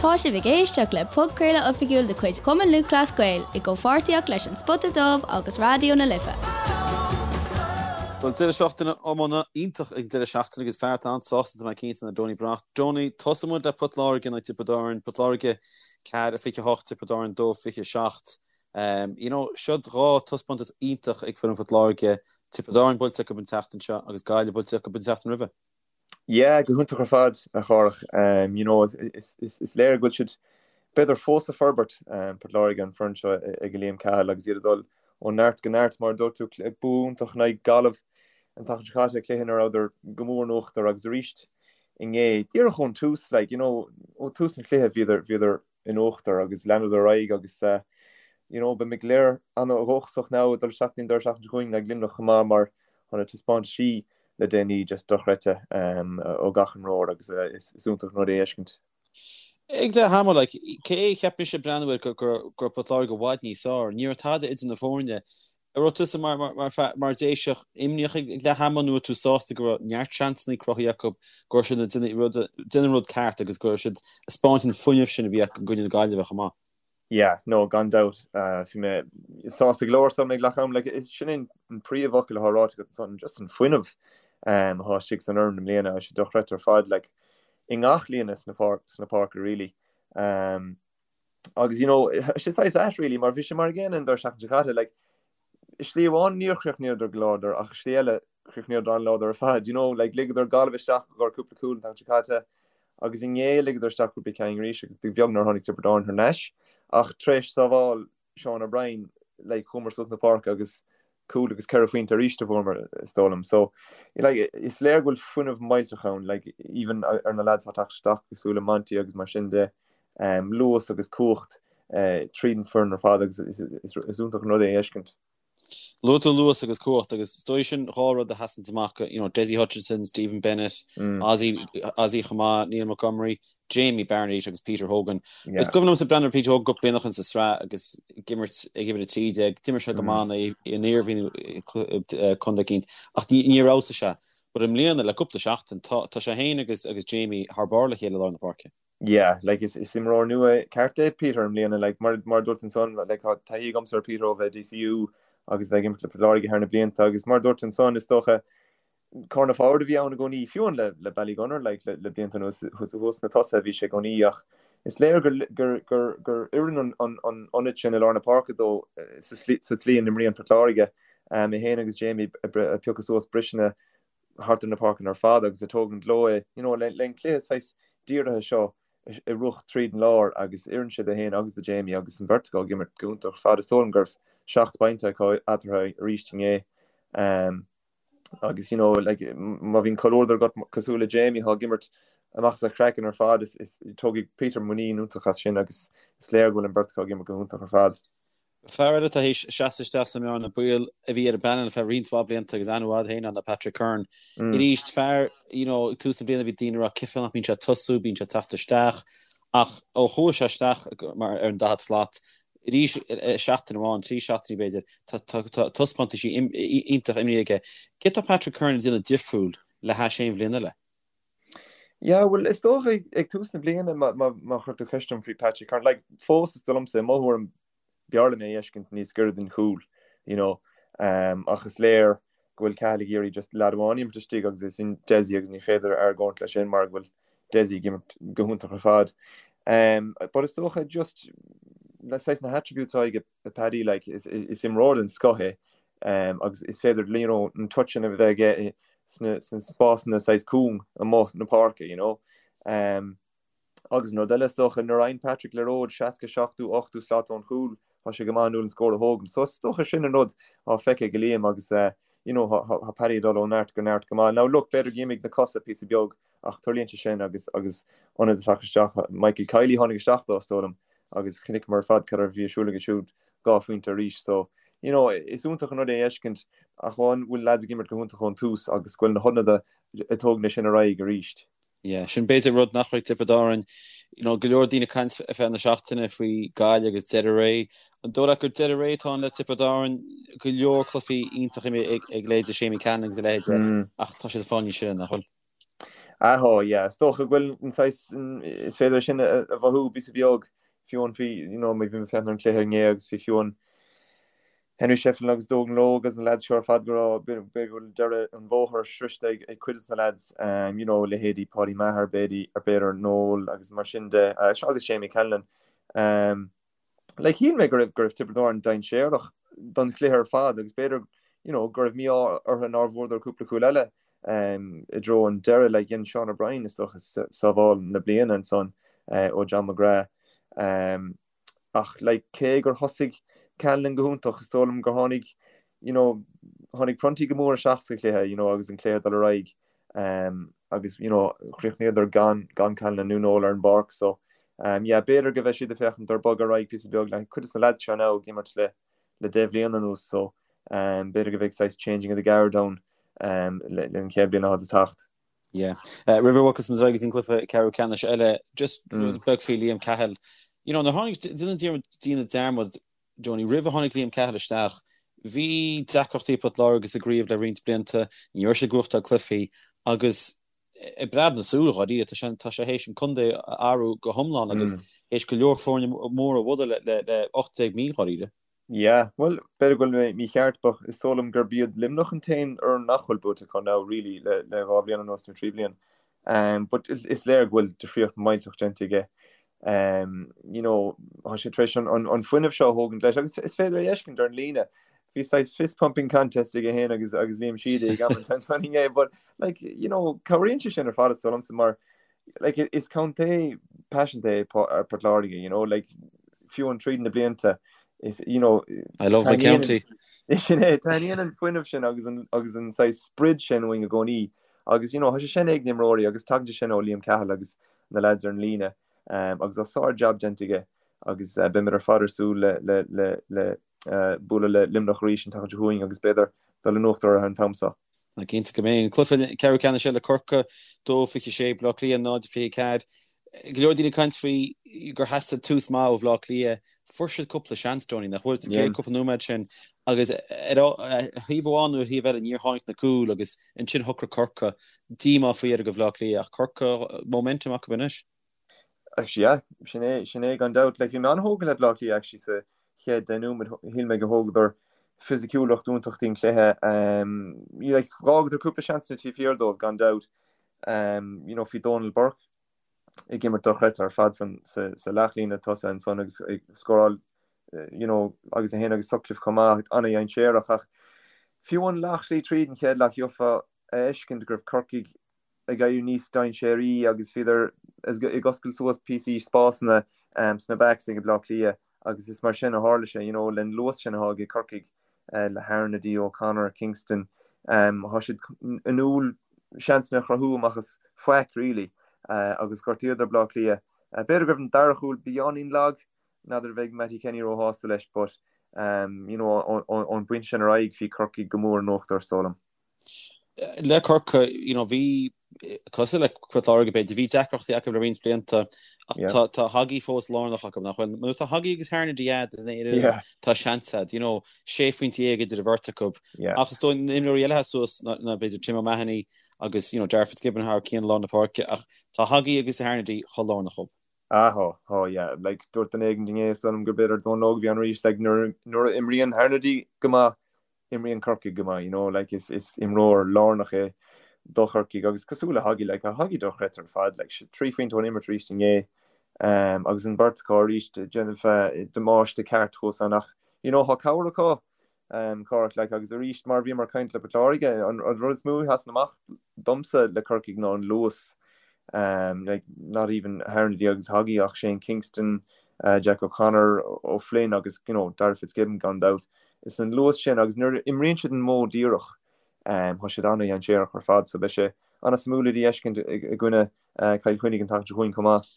Tá sibh ag éisteacht le podchraoladh oifigiúil de chuid Chumann Lúthchleas Gael i gcomhpháirtíocht leis An Spota Dubh agus Raidió na Life. Bhuel, deireadh seachtaine iomána iontach ag an deireadh seachtaine agus fear atá an-sásta tá mé cinnte ná Donie Breathnach. Donie, tosóidh muid le Port Láirge in aghaidh Tiobraid Árann. Port Láirge 4, 28, Tiobraid Árann 2, 27. You know, siod dhá taispeántas iontach ag foireann Phort Láirge, Tiobraid Árann buailte acu an tseachtain seo agus Gaillimh buailte acu an tseachtain roimhe. Yeah, go hiontach ar fad, a Chárthach. You know, is léir go bhfuil siad, b'fhéidir, fós ag forbairt, Port Láirge, an foireann seo ag Liam Cahill agus iad ag dul ó neart go neart, mar a dúirt tú, bua iontach in aghaidh Gaillimh an tseachtain seo caite, cluiche ina rabhadar go mór in uachtar agus arís inné, díreach ón tús, like, you know, ó tús an chluiche bhíodar, bhíodar in uachtar agus leanadar ar aghaidh agus you know beidh muid go léir an-dhóchasach now ag dul isteach an deireadh seachtaine seo chugainn le Luimneach chomh maith mar tá na taispeántaisí le déanaí just dochreidte ó gach imreoir agus is iontach an rud é a fheiscint. Ag leath ama, like, cé cheap mise ag breathnú air go raibh Port Láirge i bhfad níos fearr, ní raibh tada idir na foirne. An raibh tusa mar Déiseach imníoch ag leath ama nó raibh tú sásta go raibh neart seansanna cruthaithe acu, go raibh siad ag déanamh an rud ceart agus go raibh siad ag spáint an fuinneamh sin a bhí acu i gcoinne na Gaillimhe chomh maith? Yeah, no, gan dabht. Bhí mé sásta go leor ag leath ama. Like, sin é an príomhfhocal atá ráite agat ansan, just an fuinneamh atá istigh san fhoireann i mbliana, tá sé dochreidte ar fad, like, i ngach líne sna páirce really. Agus you know, sé saghas ait really mar bhí sé mar an gcéanna an deireadh seachtaine seo caite, like, i slí amháin níor chríochnaíodar go láidir ach i slí eile chríochnaíodar an-láidir ar fad, you know, like ligeadar Gaillimh isteach i gcomhair cúpla cúl an tseachtain seo caite agus inné ligeadar isteach cúpla ceann arís agus ba bheag nár tháinig Tiobraid Árann thar n-ais ach tar éis sábháil Sean O'Brien, like chuamar suas na páirce agus cúl agus 4 phointe arís a fuaireamar, is dóigh liom. So, like, is léir go bhfuil fuinneamh millteach ann, like, even ar na lads atá ag teacht isteach cosúil le Monty agus mar sin de, luas agus cumhacht tríd an foireann ar fad agus is iontach an rud é a fheiscint. Luaigh tú luas agus cumhacht agus is dóigh sin dhá rud a sheasann amach, you know, Dessie Hutchinson, Stephen Bennett, Ozzy, Ozzy chomh maith, Neil Montgomery, Jamie Barnett agus Peter Hogan. Is cuimhin liomsa breathnú ar Peter Hogan cúpla bliain ó shin sa tsraith agus ag imirt ag uimhir 13. D'imir sé go maith in Iarmhí nó contae eicínt ach níor fheabhsaigh sé. But i mbliana, le cúpla seachtain, tá tá sé féin agus agus Jamie thar barr le chéile i lár na páirce. Yeah, like is is imreoir nua ceart é Peter i mbliana, like mar mar a dúirt ansan, like tá taithí agamsa ar Peter ó bheith i DCU agus bheith ag imirt le Port Láirge thar na blianta agus mar a dúirt ansan, is dócha corner forward a bhí ann i gcónaí, fiú amháin le le Ballygunner like le le blianta anuas thuas sna tosaithe a bhí sé i gcónaí ach is léir gur gur gur gur oireann an an an ionad sin i lár na páirce dó sa slí sa tslí a n-imríonn Port Láirge. É féin agus Jamie ag piocadh suas briseanna thart ar na páirceanna ar fad agus ag tógaint leo é you know le le an cluiche saghas dírithe seo a rith tríd an lár agus oireann sé dó féin agus do Jamie agus an bheirt acu ag imirt go hiontach ar fad. Is dóigh liom go raibh 7 bpointe acu eatarthu arís inné. Agus you know like má bhíonn comhluadar agat cosúil le Jamie atá ag imirt amach as a chraiceann ar fad is is tógfaidh Peter muinín iontach as sin agus is léir go bhfuil an bheirt acu ag imirt go hiontach ar fad. Fear eile atá théis seasamh isteach sa mbearna baoil a bhí ar an bpainéal feadh roinnt mhaith blianta agus aithne mhaith agat féin air ná Patrick Curran. Arís fear you know ag tús na bliana bhí daoine ag rá cén fáth nach mbíonn sé ag tosú, bíonn sé ag teacht isteach ach ó chuaigh sé isteach mar ar an 40 slat Arís, seachtain amháin, 3 seachtainí b'fhéidir, tá taispeántaisí iontach imeartha aige. Céard tá Patrick Curran ag déanamh difriúil le hais aon bhliain eile? Yeah, bhuel, is dócha ag tús na bliana má chuir tú ceist orm faoi Patrick Curran, like, fós is dóigh liomsa, i mo thuairim, b'fhearr liom é a fheiscint níos gaire don chúl, you know, ach is léir go bhfuil Cahill ag iarraidh just leaid amháin a imirt istigh agus é sin Dessie agus ní féidir argóint leis sin mar go bhfuil Dessie ag imirt go hiontach ar fad. Um, but is dócha just le saghas na hattributes atá ag Paddy like, is, is imreoir den scoth é um, agus is féidir you know, an touch sin a bheith aige sna, sna spásanna saghas cúng amuigh na páirce, you know. Um, Agus an rud eile is dócha, nuair a fhaigheann Patrick liathróid 60, 70, 80 slat ón chúl, tá sé go maith inniúil an scór a thógaint. So is dócha sin an rud atá feicthe ag Liam agus you know tá Paddy ag dul ó neart go neart go maith. Now look, b'fhéidir gur imigh na cosa píosa beag ach tarlaíonn sé sin agus agus ionad ag teacht isteach, Michael Kiely tháinig isteach dó is dóigh liom agus chonaiceamar ar fad cad a bhí ar siúl aige siúd, dhá phointe arís. So you know is iontach an rud é a fheiscint ach amháin bhfuil lads ag imirt go hiontach ón tús agus go bhfuil na hionadaithe ag tógaint é sin ar aghaidh arís. Yeah, sin b'fhéidir rud nach raibh ag Tiobraid Árann. You know, go leor daoine ag caint ar feadh na seachtaine faoi Gaillimh agus deireadh ré. An dóigh leat gur deireadh ré atá ann le Tiobraid Árann? Go leor cluichí iontach imeartha ag leithéide Seamie Callanan agus a leithéide ach tá siad ag fáil níos sine, nach bhfuil? Ah tá, yeah. Is dócha go bhfuil an saghas, is féidir é sin a mhothú píosa beag, fiú amháin faoi, you know, bhí mé ag féachaint ar an chluiche inné agus bhí fiú amháin Henry Shefflin agus Dónal Óg agus na lads seo ar fad go raibh, b'fhéidir go bhfuil deireadh an bhóthair sroichte ag cuid de na lads, you know, leithéidí Paudie Maher, b'fhéidir, Noel agus mar sin de, agus Séamie Callanan. Like, shíl mé go raibh, go raibh Tiobraid Árann dainséarach don chluiche ar fad agus b'fhéidir, you know, go raibh mí-ádh orthu nár bhfuaireadar cúpla cúl eile i dtreo an deireadh. Like, dhein Sean O'Brien, is dócha, sábháil na bliana ansan ó John McGrath. Ach, like, cé gur thosaigh Callanan go hiontach, is dóigh liom gur tháinig, you know, tháinig Prunty go mór isteach sa chluiche, you know, agus an cluiche ag dul ar aghaidh. Agus you know chríochnaíodar gan gan Callanan nó Noel ar an bpáirc so yeah b'fhéidir go mbeidh siad ag féachaint ar bogadh ar aghaidh píosa beag like cuid de na lads seo now ag imirt le le 10 bhliain anuas so b'fhéidir go mbeidh saghas changing of the guard ann le an chéad bhliain atá le teacht. Yeah. Roimh a bhogfas muid ar aghaidh go dtí an cluiche ceathrú ceannais eile, just rud beag faoi Liam Cahill. You know, nuair a tháinig déanann daoine dearmad Donie, roimh a tháinig Liam Cahill isteach, bhí deacrachtaí ag Port Láirge sa gcraobh le roinnt blianta, ní raibh siad ag gnóthachtáil cluichí agus i bpreab na súl, dháiríre, tá sé tá sé théis an contae a athrú go hiomlán agus théis go leor foirne móra a bhualadh le le 18 mí, dháiríre. Yeah, bhuel, b'fhéidir go bhfuil mé mícheart but is dóigh liom gurb iad Luimneach an t-aon fhoireann nach bhfuil buaite acu now really le le 2 bhliain anuas nó 3 bhliain. But is léir go bhfuil difríocht millteach déanta aige. You know, tá sé tar éis an fuinneamh seo a thógaint leis agus is féidir é a fheiscint ar an líne. Bhí saghas fist pumping contest aige féin agus agus Liam Sheedy ag am an inné, but like, you know, cabhraíonn sé sin ar fad is dóigh liomsa mar like, is contae paiseanta é Port Láirge, you know, like, fiú amháin tríd na blianta, is, you know, I love my county. Sin é, taitníonn an fuinneamh sin agus an, agus an saghas sprid sin uainn i gcónaí. Agus, you know, tá sé sin ag na himreoirí agus tagann sé sin ó Liam Cahill agus na lads ar an líne agus tá sár-jab déanta aige agus beimid ar fad ar súil le, le, le, le bualadh le Luimneach arís an tseachtain seo chugainn agus b'fhéidir dul in uachtar orthu an t-am seo. Ná cinnte go mbeidh. An cluiche ceathrú ceannais eile Corcaigh 2-26, Baile Átha Cliath 0-24. Go leor daoine ag caint faoi gur theastaigh tús maith ó Bhaile Átha Cliath. Fuair siad cúpla seans, Donie, nach bhfuil, sa gcéad cúpla nóiméad sin agus ar thaobh amháin nó ar thaobh eile níor tháinig na cúil agus ansin shocraigh Corcaigh. Díomá faoi dheireadh do Bhaile Átha Cliath ach Corcaigh, momentum acu anois. Actually, yeah, sin é, sin é gan dabht. Like, bhí mé an-thógtha le Bleá Cliath actually sa chéad 10 nóiméad. Shíl mé go thógadar fisiciúlacht iontach don chluiche. Um, like, dh'fhágadar cúpla seansanna taobh thiar dóibh gan dabht. Um, you know, bhí Donal Burke ag imirt dochreidte ar fad san, sa, sa leathlíne tosaigh ansan agus ag scóráil you know, agus é féin agus Sutcliffe chomh maith, an-dhainséarach ach fiú amháin leath tríd an chéad leath gheofá a fheiscint go raibh Corcaigh ag éirí níos dainséaraí agus bhíodar ag oscailt suas píosaí spásanna sna backs ag Bleá Cliath agus is mar sin a tharla sé, you know, len luas sin atá ag Corcaigh le Harnedy, O'Connor, Kingston, tá siad in inniúil seansanna a chruthú amach as faic really agus ghortaíodar Bleá Cliath. B'fhéidir go raibh an dara chúl beagáinín lag, n'fheadar an mbeidh Mattie Kenny róshásta leis but you know ón bpointe sin ar aghaidh bhí Corcaigh go mór in uachtar is dóigh liom. Le Corcaigh, you know, bhí, cosúil le Port Láirge b'fhéidir, bhí deacrachtaí acu le roinnt blianta ach tá, tá Hoggy fós lárnach acu, nach bhfuil? Nuair atá Hoggy agus Harnedy a'd in aon fhoireann, tá seans a'd, you know, sé phointe idir an bheirt acu. Ach is dóigh na himreoirí eile atá suas ná, ná b'fhéidir Tim O'Mahony agus, you know, Darragh Fitzgibbon thar cionn lár na páirce ach tá Hoggy agus Harnedy chomh lárnach dhób. Ah, tá, tá, yeah. Like, dúirt duine éigin inné, is dóigh liom gur b'fhéidir Dónal Óg a bhí ann arís, like, nuair, nuair a imríonn Harnedy go maith, imríonn Corcaigh go maith, you know, like is is imreoir lárnach é do Chorcaigh agus cosúil le Hoggy, like tá Hoggy dochreidte ar fad, like 3 phointe ón imirt arís inné um, agus an bheirt acu arís ag déanamh damáiste ceart thuas ann ach you know tá cabhair acu um, Cárthach, like agus arís mar bhíomar ag caint le Port Láirge, an, an rud is mó a sheasann amach domsa le Corcaigh ná an luas um, like not even Harnedy agus Hoggy ach Shane Kingston, uh, Jack O'Connor, O'Flynn agus you know, Darragh Fitzgibbon gan dabht. Is an luas sin agus nuair a imríonn siad an modh díreach, tá siad an-dhainséarach ar fad so beidh sé an-suimiúil iad a fheiscint i gcoinne Cill Chainnigh an tseachtain seo chugainn chomh maith.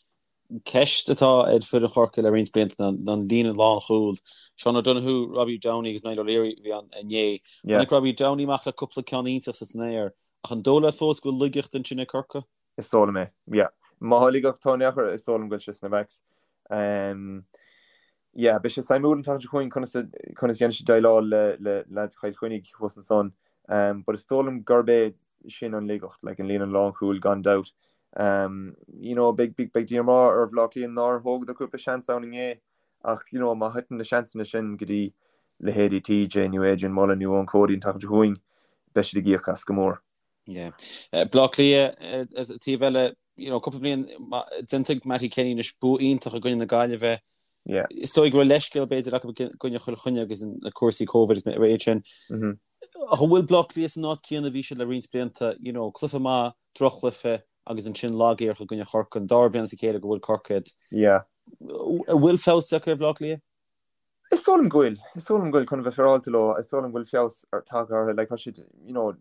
Ceist atá ar foireann Chorcaí le roinnt blianta ná an líne lánchúil. Seán O'Donoghue, Robbie Downey agus Niall O'Leary a bhí ann inné. Tháinig Robbie Downey amach le cúpla ceann iontach san aer, ach an dóigh leat fós go bhfuil laigeacht ansin ag Corcaigh? Is dóigh liom é, yeah. Má tá laigeacht in aon chor, is dóigh liom go bhfuil sé sna backs. Yeah, beidh sé suimiúil an tseachtain seo chugainn conas a conas a dhéanfaidh siad déileáil le le lads Chill Chainnigh thuas ansan. But is dóigh liom gurb é. sin an laigeacht, like an líne lánchúil gan dabht. You know, beidh díomá ar Bhaile Átha Cliath nár thógadar cúpla seans ann inné ach, you know, má thiteann na seansanna sin go dtí leithéidí TJ nó Adrian Mullen nó Eoin Cody an tseachtain seo chugainn, beidh siad ag íoc as go mór. Yeah. Baile Átha Cliath, taobh eile, you know, cúpla bliain déanta ag Mattie Kenny anois bua iontach i gcoinne na Gaillimhe. Yeah. Is dóigh go raibh leithscéal b'fhéidir acu i gcoinne Chill Chainnigh agus na cúrsaí Covid agus a leithéid sin. Ach an bhfuil Baile Átha Cliath san áit céanna a bhí siad le roinnt blianta, you know, cluiche maith, droch-chluiche agus ansin lag-éiric i gcoinne Chorcaí, an dara bliain as a chéile go bhfuil Corcaigh. Yeah. An bhfuil feabhas tagtha ar Bhaile Átha Cliath? Is dóigh liom go bhfuil. Is dóigh liom go bhfuil, chun a bheith féaráilte leo, is dóigh liom go bhfuil feabhas tagtha orthu. Like, tá siad, you know,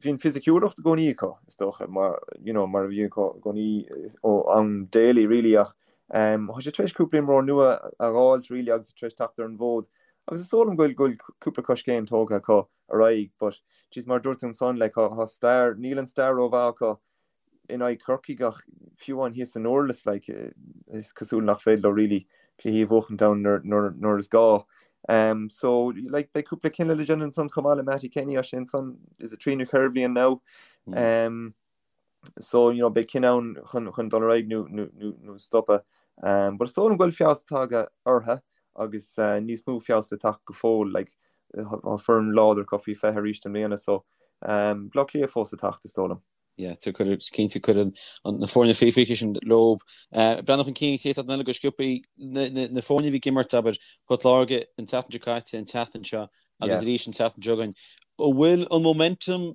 bhí an fisiciúlacht i gcónaí acu, is dócha, mar, you know, mar a bhí acu i gcónaí ó am Daly, really, ach um, tá siad tar éis cúpla imreoir nua a dh'fháilt, really, agus tar éis teacht ar an bhfód. Agus is dóigh liom go bhfuil, go bhfuil cúpla coiscéim tógtha acu ar aghaidh, but, jeez, mar a dúirt tú ansan, like, tá, tá stair, níl an stair rómhaith acu in aghaidh Chorcaigh ach fiú amháin thíos i nDurlas, like, is cosúil nach féidir leo really cluichí a bhuachaint ann nuair is gá. Um, so, like, beidh cúpla cinneadh le déanamh ansan chomh maith le Mattie Kenny tá sé ansan, is it trí nó ceithre bhliain now? Um, so, you know, beidh cinneadh ann chun, chun dul ar aghaidh nó, nó, nó, nó stopadh. Um, but is dóigh liom go bhfuil feabhas tagtha orthu agus uh, níos mó feabhas le teacht go fóill, like, tá foireann láidir acu faoi 20 arís i mbliana, so, um, Bleá Cliath fós le teacht, is dóigh liom. Yeah, cinnte cuireann na foirne faoi 20 sin leo. Breathnú chun cinn an chéad seachtain eile go sciobtha, na foirne a bhí ag imirt, abair, Port Láirge an tseachtain seo caite, an tseachtain seo agus arís an tseachtain seo chugainn. An bhfuil an momentum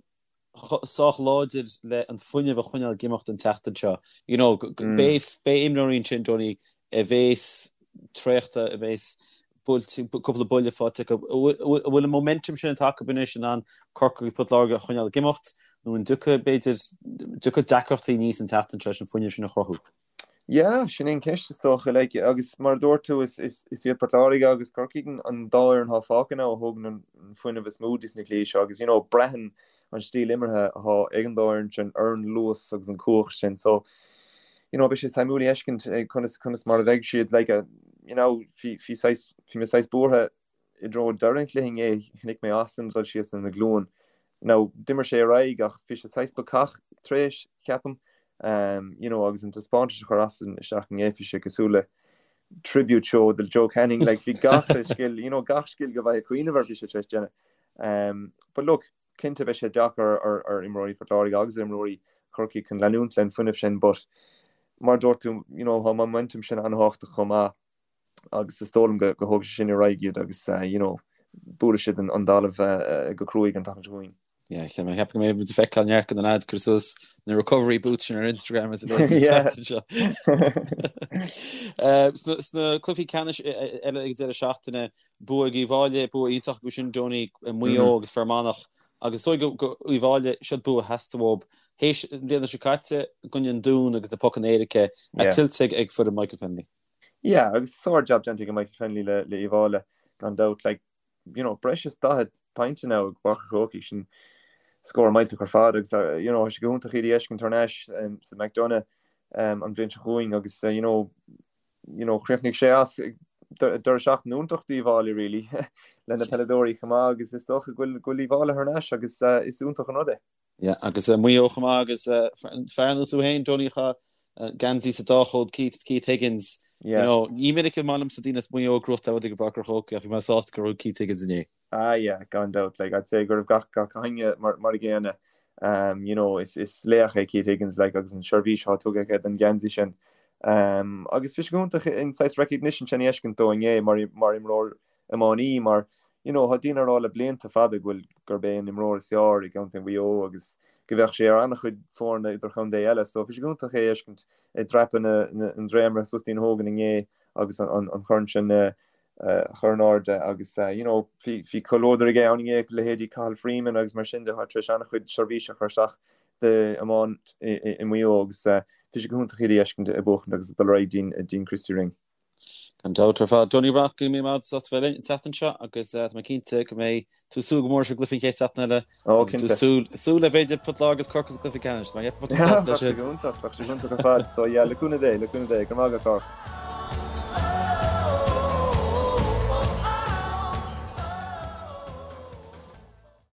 sách láidir le an fuinneamh a choinneáil ag imeacht an tseachtain seo? You know, beidh imreoirí ansin, Donie, a bhéas traochta, a bhéas buailte, cúpla buille faighte acu. An bhfuil an momentum sin atá acu anois in ann Corcaigh agus Port Láirge a choinneáil ag imeacht nó an dtiocfaidh, b'fhéidir, dtiocfaidh deacrachtaí aníos an tseachtain seo leis an fuinneamh sin a chruthú? Yeah, sin é an ceist is dócha. Like, agus mar a dúirt tú, is, is, is iad Port Láirge agus Corcaigh an dá fhoireann atá fágtha now a thógann an fuinneamh is mó dos na cluichí seo agus, you know, braitheann an stíl imeartha atá ag an dá fhoireann sin ar an luas agus an cumhacht sin. So, you know, beidh sé suimiúil a fheiscint conas, conas mar a bheidh siad, like, you know, bhí, bhí saghas, bhí mé saghas buartha i dtreo deireadh an chluiche inné, chonaic mé Austin dul síos ina ghlúin. Now, d'imir sé ar aghaidh ach bhí sé saghas bacach tar éis, ceapaim, um, you know, agus an taispeántas a chuir Austin isteach inné, bhí sé cosúil le tribute show do Joe Canning, like, bhí gach saghas scil, you know, gach scil go bhfaighidh cuimhneamh air bhí sé tar éis déanamh. Um, but look, cinnte beidh sé deacair ar, ar imreoirí Phort Láirge agus ar imreoirí Chorcaí chun leanúint len fuinneamh sin, but mar dúirt tú, you know, tá momentum sin an-thábhachtach chomh maith agus is dóigh liom go, go thógfaidh sé sin ar aghaidh iad agus, uh, you know, buailfidh siad an, an talamh uh, go cruaidh an tseachtain seo chugainn. Yeah, cheap mé cheap go mbeidh muid ag feiceáil neart de na lads cur suas na recovery boots sin ar Instagram is a leithéid an tseachtain seo. Sna cluichí ceannais eile ag deireadh seachtaine, bua ag Uíbh Fhailí, bua iontach acu sin, Donie, Maigh Eo agus Fear Manach agus is dóigh go Uíbh Fhailí, siod bua a theastaigh uathu. Théis an bhliana seo caite i gcoinne an Dúin agus na pocanna éirice, tuillte ag foireann Michael Fennelly. Yeah, agus sár-jab déanta ag Michael Fennelly le Uíbh Fhailí, gan dabht. Like, you know, breis is 40 pointe now i bPáirc an Chrócaigh, sin scór millteach ar fad agus you know, tá sé go hiontach iad a fheiscint thar n-ais um, sa McDonagh um, an bhliain seo chugainn agus uh, you know, you know, chríochnaigh sé as deireadh seachtaine iontach d'Uíbh Fhailí really le na peileadóirí chomh maith agus is dócha go bhfuil go bhfuil Uíbh Fhailí thar n-ais agus uh, is iontach an rud é. Yeah, agus Maigh Eo chomh maith agus fear ar nós thú féin, Donie chaith geansaí sa dá chód Keith, Keith Higgins. You know, ní minic is maith liomsa daoine as Maigh Eo ag gnóthachtáil rud i bPáirc an Chrócaigh ach bhí mé sásta go raibh Keith Higgins inné. Ah yeah, gan dabht, like I'd say go raibh gach gach éinne mar mar a gcéanna. Um, you know, is is laoch é Keith Higgins like agus an seirbhís atá tugtha aige don gheansaí sin. Um, agus bhí sé go hiontach an saghas recognition sin a fheiscint dó inné mar mar imreoir iománaí mar you know tá daoine ag rá le blianta fada go bhfuil gurb é an imreoir is fearr i gcontae Mhaigh Eo agus go bheadh sé ar an-chuid foirne idirchontae eile so bhí sé go hiontach é a fheiscint ag dreapadh na na an dréimire suas dtí'n Hogan inné agus an an an chorn sin a chur in airde agus you know bhí bhí comhluadar aige ann inné leithéidí Cathal Freeman agus mar sin de atá tar éis an-chuid seirbhíse a chur isteach d'iomáint i i i Maigh Eo agus bhí sé go hiontach iad a fheiscint ag buachaint agus ag dul ar aghaidh dtí'n dtí'n Christy Ring. Gan dabht ar fad. Donie Breathnach, go raibh míle maith agat as ucht a bheith linn an tseachtain seo agus tá mé cinnte go mbeidh tú ag súil go mór leis an gcluiche an chéad seachtain eile Ó, agus tú cinnte. súil, súil le b'fhéidir Port Láirge agus Corcaigh sa gcluiche ceannais. Tá mé ag ceapadh go mbeidh tú sásta leis sin. Bheadh sé go hiontach, bheadh sé go hiontach ar fad. So yeah, le cúnamh Dé, le cúnamh Dé. Go raibh maith agat, Cárthach.